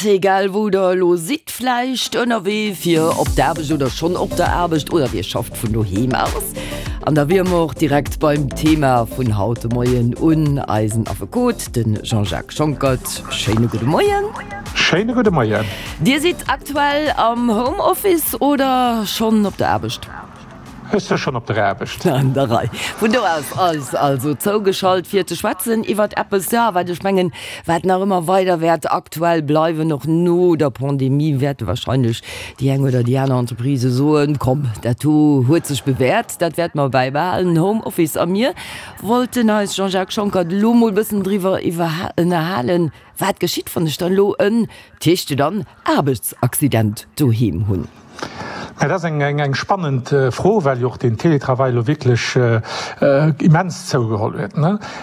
egal wou der elo sidd, vläicht ënnerwee fir op d'Aarbecht oder schonn op der Aarbecht oder dir schafft vun doheem aus. An da wiere mer och direkt beim Thema vun haut de Moien un eisen Affekot, de Jean-Jacques Schonckert. Schéine gudde Moien. Schéine gudde Moien. Dir sidd aktuell am Homeoffice oder schonn op der Aarbecht? Ech si schonn op der Aarbecht. An der Rei. Vun do aus eis also zougeschalt fir ze schwätzen iwwert eppes, jo, wat ech mengen, wat nach ëmmer weider wäert aktuell bleiwen, och no der Pandemie wäerte wahrscheinlech déi eng oder déi aner Entreprise soen, komm, dat do huet sech bewährt, dat wäerte mer bäibehalen, Homeoffice. A mir wollten eis, Jean-Jacques Schonckert, elo mol e bëssen driwwer ënnerhalen, wat geschitt, wann ech dann elo en, d'heescht jo dann, Aarbechtsaccident doheem hunn. Dat ass eng spannend Fro, well jo och den Télétravail elo wierklech immens zougeholl huet.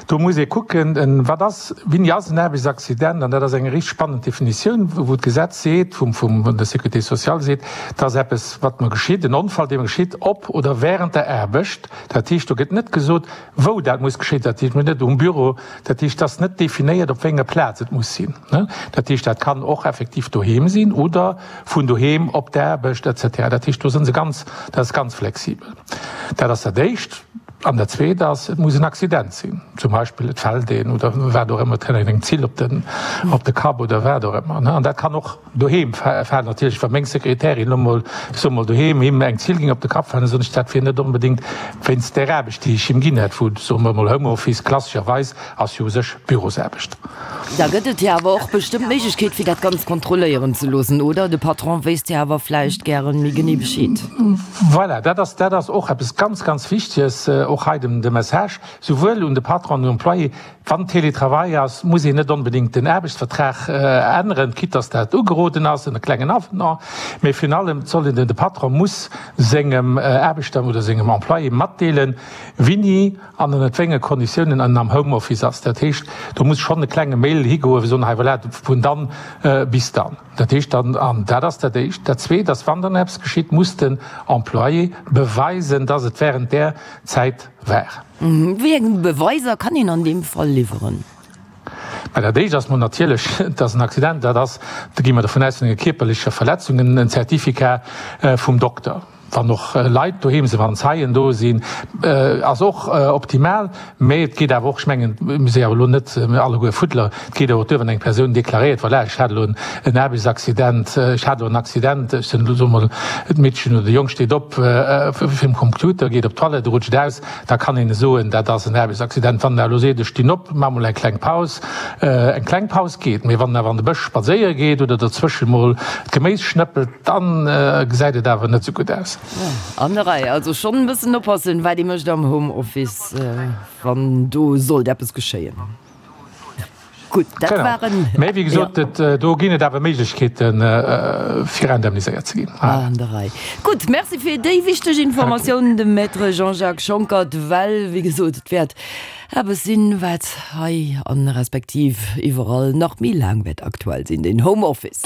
Do muss ee kucken, wat ass, wéini ass en Aarbechtsaccident? An dat ass eng richteg spannend Definitioun, wou d'Gesetz seet, vum der Sécurité sociale seet, dat ass eppes, wat mer geschitt, en Onfall, dee mer geschitt op oder während der Aarbecht. Dat heescht, do gëtt net gesot, wou dat muss geschéien. Dat heescht, net um Büro. Dat heescht, et ass net definéiert, op wéi enger Plaz et muss sinn. Dat heescht, dat kann och effektiv doheem sinn oder vun doheem op d'Aarbecht et cetera. Dat heescht, do si se ganz, dat ass ganz flexibel. Dat ass dat Éischt. An dat Zweet ass, et muss en Accident sinn. Zum Beispill et fält een oder wat och ëmmer, et kënnt eng Zill op den, op de Kapp oder wat och ëmmer. An dat kann och doheem falen. Natierlech, wa meng Sekretärin elo mol, ech soe mol doheem, him eng Zill géing op de Kapp falen, da soen ech, dat wier net onbedéngt wéinst där Aarbecht, déi ech him ginn hätt, wou, soe mer emol, Homeoffice klassescherweis ass jo u sech Bürosaarbecht. Da gëtt et jo awer och bestëmmt d'Méiglechkeet, fir dat Ganzt kontrolléieren ze loossen, oder? De Patron wéisst jo awer vläicht gären méi genee Bescheed. Voilà, dat ass, dat ass och eppes ganz, ganz Wichtiges, och hei de, de Message souwuel un de Patron an un den Employé, Wann Télétravail ass, muss een net onbedéngt den Aarbechtsvertrag änneren, quitte dass dat ugeroden ass, en klengen Avenant, mä virun allem soll een, de Patron muss sengem Aarbechter oder sengem Employé matdeelen, wéini an ënnert wéi enge Konditiounen en am Homeoffice ass. Dat heescht, do muss schonn e klenge Mail higoen, fir soen, hei voilà, vun dann bis dann. Dat heescht dann, an dat ass dat Éischt. Dat Zweet ass, wann dann eppes geschitt, muss den Employé beweisen, dass et während där Zäit war. Wéi eng Beweiser kann een an deem Fall liwweren? Mä dat Éischt ass mol natierlech, dass en Accident dat ass, do gi mer dovun aus, vun enger kierperlecher Verletzung, en Certificat vum Dokter. Wann och Leit doheem sinn, wann Zeien do sinn, ass och optimal. Mä et geet awer och, ech mengen, mir si awer elo net alleguer Fuddler, et geet awer och duer, wann eng Persoun deklaréiert, voilà, ech hat elo en Aarbechtsaccident, ech hat elo en Accident, ech sinn elo, soe mer, d'Meedchen oder de Jong steet op virum Computer, geet op d'Toilette, rutscht aus, da kann een soen, dat ass en Aarbechtsaccident. Wann en awer elo seet, ech stinn op, maache mol eng kleng Paus, eng kleng Paus geet, mee wann en awer an de Bësch spadséiere geet oder dozwësche mol d'Geméis schnëppelt, Dann gesäit et awer net sou gutt aus. An der Rei, also schonn e bëssen oppassen, wat ee mécht am Homeoffice, wann do sollt eppes geschéien. Gutt, dat waren. Mä wéi gesot, do ginn et awer Méiglechkeeten, fir indemniséiert ze ginn. An der Rei. Gutt, Merci fir déi wichteg Informatioun, de Maître Jean-Jacques Schonckert, well, wéi gesot, et wäert eppes sinn, wat hei an respektiv iwwerall nach méi laang wäert aktuell sinn, den Homeoffice.